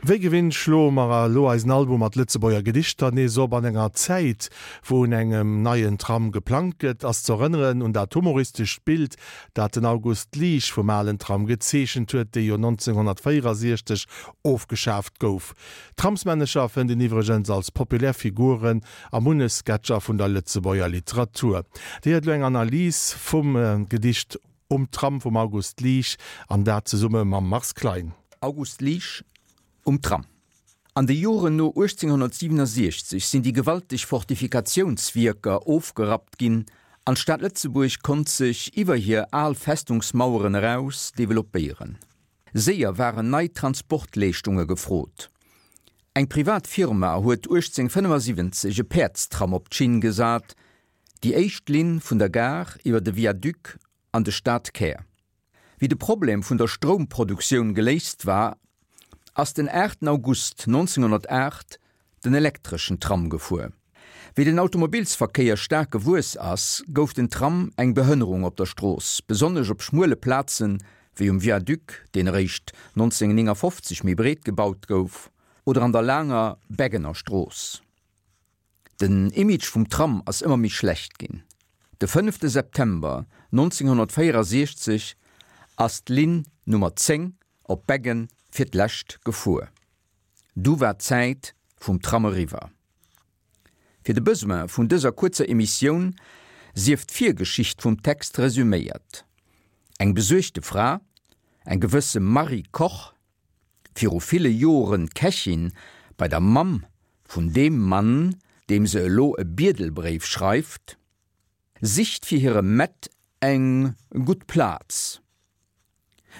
Wéi gewinnt schloe mer elo eisen Album mat Lëtzebuerger Gedichter nees op. An enger Zäit, wou un engem neien Tram geplangt gëtt, ass z'erënneren un dat humoristescht Bild, dat den August Liesch vum alen Tram gezeechent huet, dee jo 1964 ofgeschaaft gouf. Tramsmännecher fënnt een iwwregens als populär Figuren a munnech Sketcher vun der Lëtzebuerger Literatur. Dir héiert elo eng Analys vum Gedicht Um Tram vum August Liesch, an dat zesumme mam Mars Klein. August Liesch, Um Tram. An de Joren no 1867 sinn déi gewalteg Fortifikatiounswierker ofgerappt ginn an d'Stad Lëtzebuerg konnt sech iwwer hir al Festungsmaueren eraus developpéieren. Séier waren nei Transportleeschtunge gefrot. Eng privat Firma huet 1875 e Päerdstram op d'Schinn gesat, déi éischt Linn vun der Gare iwwer de Viaduc an de Stadkär. Wéi de Problem vun der Stroumproduktioun geléist war, ass den 8 August 1908 den elektreschen Tram gefuer. Wéi den Automobilsverkéier staark gewuess ass, gouf den Tram eng Behënnerung op der Strooss, besonnesch op schmuele Plazen, wéi um Viaduc, deen eréischt 1959 méi breet gebaut gouf, oder an der laanger Beggener Strooss. Den Image vum Tram ass ëmmer méi schlecht ginn. De fënnefte September 1964 ass d'Linn Nummer 10 op Beggen fir d'lescht gefuer. Du war d'Zäit vum Tram eriwwer. Fir de Besoin vun dëser kuerzer Emissioun sief d'Virgeschicht vum Text resüméiert. Eng besuergte Fra, eng gewësse Marie Koch, viru ville Joren Kächin bei der Mamm vun deem Mann, deem se elo e Biedelbréif schreift, sicht fir hire Mett eng gutt Plaz.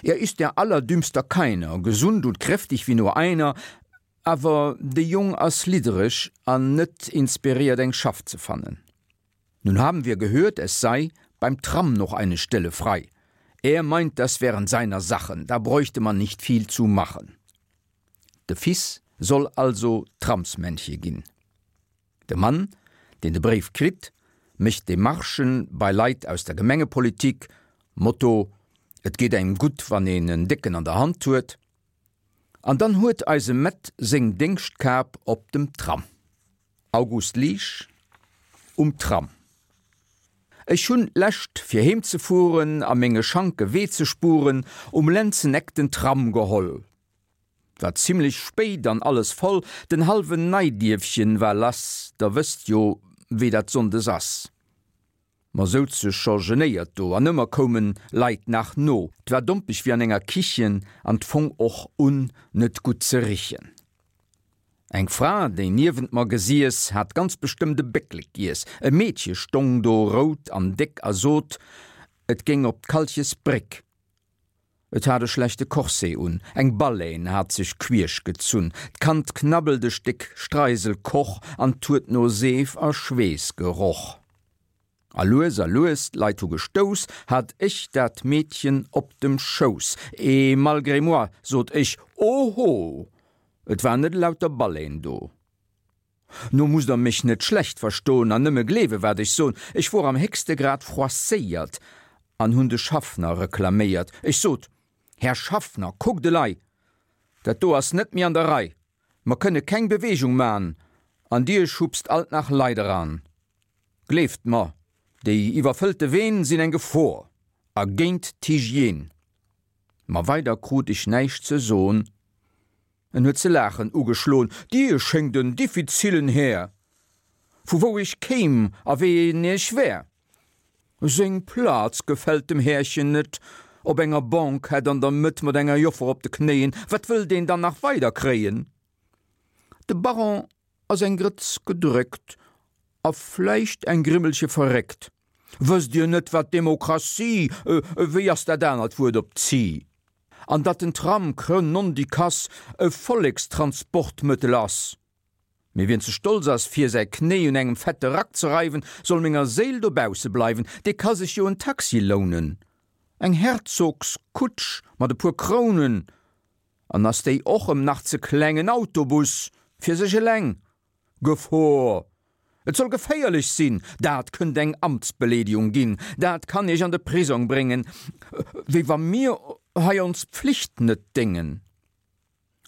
Er ist der allerdümmster Keiner, gesund und kräftig wie nur einer, awer de Jong ass liddereg an net inspiréiert eng Schaff ze fannen. Nun haben wir gehört, es sei beim Tram noch eine Stelle frei. Er meint, das wären seiner Sachen, da bräuchte man nicht viel zu machen. De Fils soll also Tramsmännche ginn. De Mann, deen de Bréif kritt, mécht Demarchen bei Leit aus der Gemengepolitik, Motto, Et geet engem gutt, wann een en Décken an der Hand huet. An dann huet eise Mett seng Déngschtkap op dem Tram. August Liesch, Um Tram. Ech hunn d'lescht, fir heem ze fueren a menge Schanke Wee ze spuren, um Lenzeneck den Tram geholl. War zimlech spéit an alles voll, den halwen Neidierfchen war lass, der wësst jo wéi dat Sonndes ass. Mer souze scho genéiert do an ëmmer koumen Leit nach no, 't war dompeg wéi an enger Kichen an 't fong och un net gutt ze richen. Eng Fra déi niewent mer gesiess hat ganz bestëmmt e Bécklek giess, e Meedche stong do rout an déck a sot et géing op d'Kalchesbréck. Et hat e schlechte Corset un, eng Baleine hat sech quiesch gezunn, d'Kand knabbelt e Stéck Streiselkoch an 't huet no Seef a Schweess geroch. A lues a lues, d'Leit hu gestouss, hat ech dat Meedchen op dem Schouss. Et malgré moi sot ech, Oho! Et war net elauter Baleine do. No musst der mech net schlecht verstoen an nëmme gleewe wat ech son, ech wor am héchste Grad froisséiert an hunn de Schaffner reklaméiert. Ech sot, Här Schaffner, kuckt elei, dat do ass net méi an der Rei, mer kënne keng Bewegung man an dir schubst alt nach Leit eran. Gleeft mer, déi iwwerfëllte Ween sinn eng Gefor a géint d'Hygiène. Ma weider krut ech näischt ze son. En huet ze laachen ugeschloen. Dir schéngt en diffizillen Här. Vu wou ech kéim a ween ech wär. Seng Plaz gefält dem Härchen net. Op enger Banquette an der Mëtt mat enger Joffer op de Knéien. Wat wëllt een dann nach weider kréien? De Baron ass eng Grëtz gedréckt a vläicht eng Grimmelche verréckt. Wësst Dir net, wat Demokratie, wéi ass dat anert Wuert op zie? An datt den Tram, cre nondikass, e Vollekstransportmëttel ass? Mee wien ze stolz ass, fir säi Knéi un engem fette Rack ze reiwen, soll menger Séil dobausse bleiwen, dee ka sech jo en Taxi lounen, eng Herzogskutsch mat e puer Krounen, an ass déi och em nach ze kleng, en Autobus fir sech eleng. Gefor! Et soll geféierlech sinn, dat kënnt eng Amtsbeleedigung ginn, dat kann Iech an de Prisong bréngen, wéi wa mir hei ons Pflicht net déngen.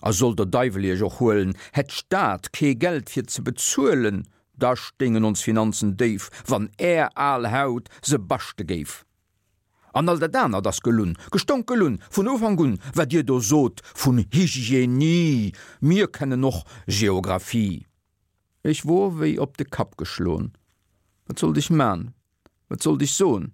A soll der Deiwel iech och huelen, hätt d'Stad kee Geld fir ze bezuelen, da stéingen ons Finanzen déif, wann är al Haut se baschte géif. An all dat anert ass gelunn, gestonk gelunn, vun Ufank un, wat dir do sot vun Hygienie, mir kennen och Geographie. Ech wor wéi op de Kapp geschlon, wat sollt ech man, wat sollt ech son?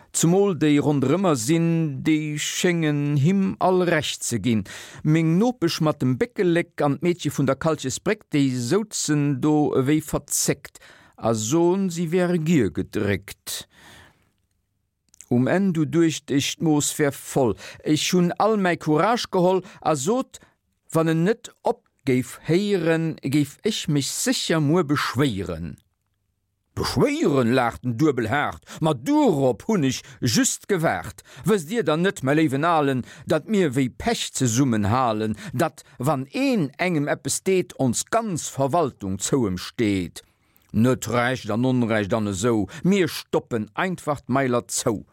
Zemol déi ronderëmmer sinn, déi schéngen him all Recht ze ginn. Meng Nopesch mat dem Béckelek an d'Meedche vun der Kalchesbréck, déi souzen do ewéi verzéckt a son, si wäre gier gedréckt. Um Enn du duecht ech, d'Mooss wär voll. Ech hunn all mäi Courage geholl a sot, wann en net op géif héieren, géif ech mech sécher muer beschwéieren. Beschwéieren? laacht en duebel haart, ma duerop hunn ech just gewaart. Wësst Dir dann net, mäi léiwen Alen, datt mir wéi Pech zesummen halen, datt, wann een engem eppes deet, ons ganz Verwaltung zou em steet? Net Recht an Onrecht an esou, mir stoppen einfach d'Mailer zou.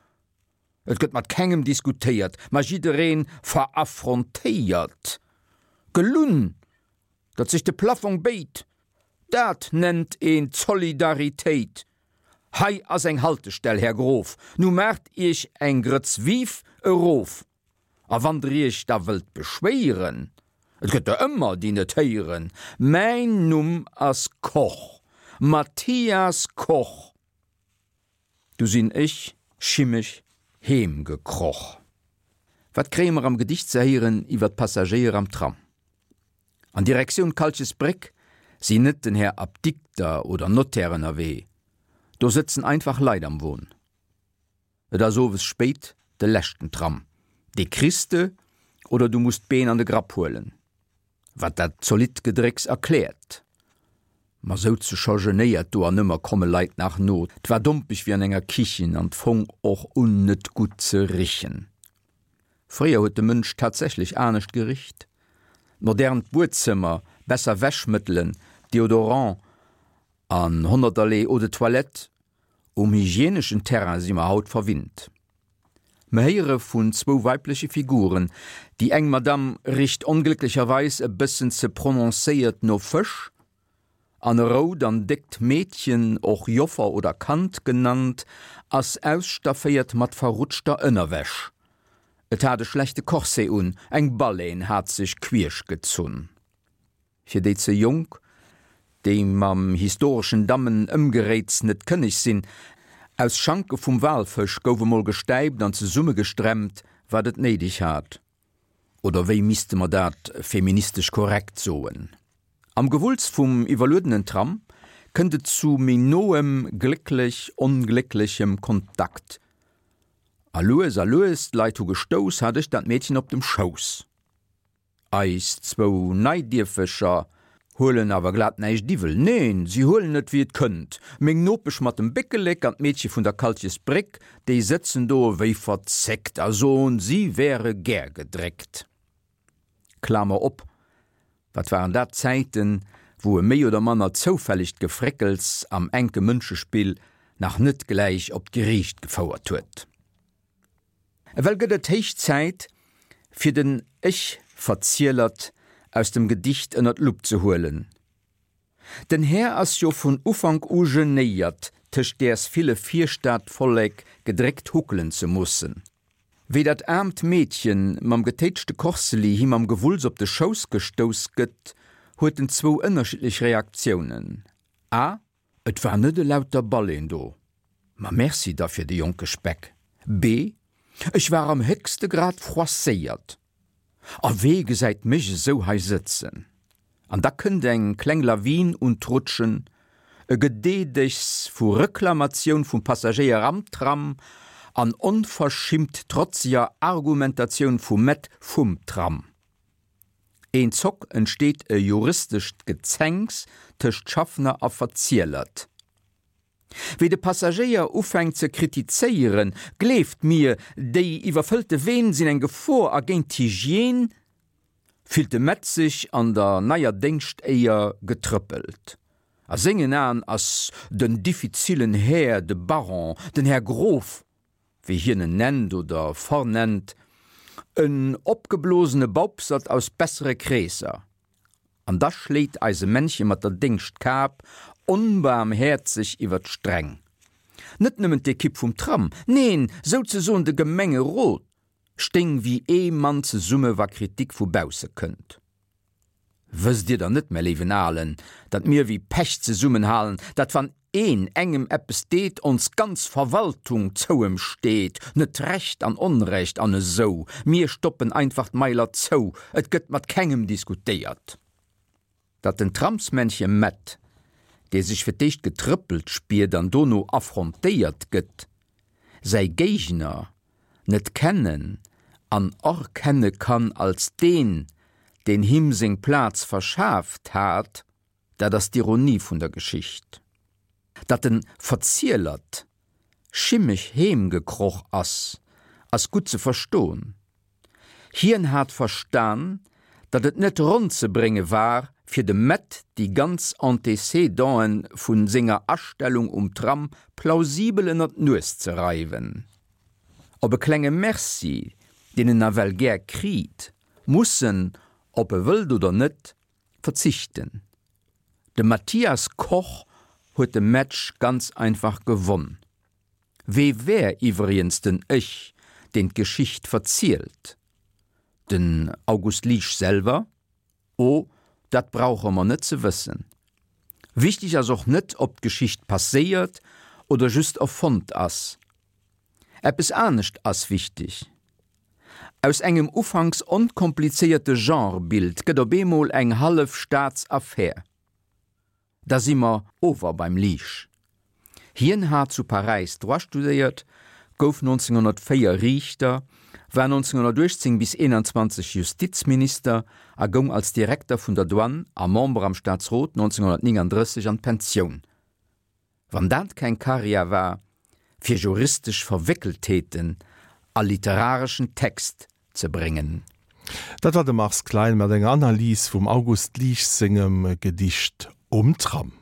Et gëtt mat kengem diskutéiert, ma jiddereen veraffrontéiert. Gelunn, datt sech de Plafong béit, dat nennt een Zolidaritéit. Hei ass eng Haltestell, Här Grof, nu maacht Iech eng Grëtz Vive erof. A wann der iech da wëllt beschwéieren, et gëtt der ëmmer, déi net héieren, mäin Numm ass Koch, Mathias Koch. Du sinn ech schimmeg heem gekroch. Wat kréie mer am Gedicht ze héieren iwwer d'Passagéier am Tram? An Direktioun Kalchesbréck sinn net den Här Apdikter oder Notaire ënnerwee, do sëtzen einfach Leit am Won. Et ass owes spéit, de leschten Tram, dee kriss de oder du muss d'Been an de Grapp huelen. Wat dat zolidd Gedrécks erkläert. Mer souze scho genéiert do an ëmmer komme Leit nach no. 't war dompeg wéi an enger Kichen an 't fong och un net gutt ze richen. Fréier huet de Mënsch tatsächlech anescht gericht. D'modernt Buedzëmmer, besser Wäschmëttelen, Deodorant an honnerterlee Eau de toilette Um hygieneschen Terrain si mer haut verwinnt. Mer héiere vun zwou weibleche Figuren, déi eng Madame richt onglécklecherweis e bëssen ze prononcéiert no Fësch, an e rout an déckt Meedchen, och Joffer oder Kand genannt, ass ausstafféiert mat verrutschter Ënnerwäsch. Et hat e schlechte Corset un, eng Baleine hat sech quiesch gezunn. Fir déi ze jonk, déi mam historeschen Dammen-Ëmgeréits net kënneg sinn, Aus Schanke vum Walfësch gouf emol gestäipt an zesummegestremmt, wat et néideg hat. Oder wéi misste mer dat feministesch korrekt soen? Am Gewulls vum iwwerluedenen Tram kënnt et zu méi noem, glécklech-onglécklechem Kontakt. A lues a lues, d'Leit hu gestouss, hat ech dat Meedchen op dem Schouss. Eis zwou Neidierfecher huelen awer glat näischt iwwel. Neen, si huelen et wéi et kënnt. Meng Nopesch mat dem Béckelek an d'Meedche vun der Kalchesbréck, déi sëtzen do ewéi verzéckt a soen, si wäre gär gedréckt. Klamer op, Wat waren dat Zäiten, wou e méi oder manner zoufällegt Gefréckels am enke Mënschespill nach net gläich op d'Geriicht gefouert huet. Ewell gëtt et héich Zäit, fir den Ech-Verzielert aus dem Gedicht ënner d'Lupp ze huelen. Den Här ass jo vun Ufank u genéiert, tëscht däers ville Virstadvollek gedréckt huckelen ze mussen. Wéi dat aarmt Meedchen mam getéitschte Korseli him am Gewulls op de Schouss gestouss gëtt, huet en zwou ënnerschiddlech Reaktiounen, a. Et war net elauter Baleeën do, ma merci da fir de jonke Speck. B, Ech war am héchste Grad froisséiert. A wee gesäit mech esou hei sëtzen? An da kënnt eng kleng Lawin un d'Rutschen, e Gedeedegs vu Reklamatioun vum Passagéier am Tram an onverschimmt trotzeger Argumentatioun vum Maître vum Tram. Een Zock entsteet e juristescht Gezänks tëscht Schaffner a Verzielert. Wéi de Passagéier ufänkt ze kritizéieren, Gleeft mir, déi iwwerfëllte Ween sinn eng Gefor a géint d'Hygiène, fillt de Metz sech an der neier Déngschtéier getrëppelt. A sengen Aen ass den diffizillen Här, de Baron, den Här Grof, wéi hien en nennt oder vernennt. En opgeblosene Baupsert aus bessere Kreesser. An da schléit eise Männche mat der Déngschtkap onbaarmhäerzeg iwwer d'Streng. Net nëmmen d'Ekipp vum Tram, neen, souzesoen de Gemengerot stéing wéi ee Mann zesumme wa Kritik vu bausse kënnt. Wësst Dir dann net, mä léiwen Alen, datt mir wéi Pech zesummenhalen, datt wann een engem eppes deet, ons ganz Verwaltung zou em steet, net Recht an Onrecht an esou, mir stoppen einfach d'Mailer zou, et gëtt mat kengem diskutéiert. Datt den Tramsmännche Mett, dee sech fir d'éischt getrëppelt spiert an dono affrontéiert gëtt, säi Géigner net kennen an erkenne kann als deen, deen him seng Plaz verschaaft hat, dat ass d'Ironie vun der Geschicht. Datt de Verzielert schimmeg heem gekroch ass, ass gutt ze verstoen. Hien hat verstan, datt et net ronn ze brénge war, fir dem Mett déi ganz Antécédenten vu senger Astellung um Tram plausibel ënner d'Nues ze reiwen. Op e klenge Merci, deen en nawell gär kriit, muss en, ob e wëllt oder net, verzichten. De Mathias Koch huet de Match ganz einfach gewonn. Wee wär iwwriens den Ech, deen d'Geschicht verzielt? Den August Liesch selwer? Oh, dat brauche mer net ze wëssen. Wichteg ass och net, ob d'Geschicht passéiert oder just erfonnt ass. Eppes anescht ass wichteg, Aus engem ufanks onkomplizéierte Genrebild gëtt op eemol eng hallef Staatsaffär. Da si mer ower beim Liesch. Hien hat zu Paräis Droit studéiert, gouf 1904 Riichter, war 1918 bis 21 Justizminister a goung als Direkter vun der Douane a Member am Staatsrot 1939 an d'Pensioun. Wann dat keng Karriär war, fir juristesch Verwéckeltheeten a literareschen Text ze bréngen. Dat war de Mars Klein mat enger Analys vum August Liesch sengem Gedicht Um Tram.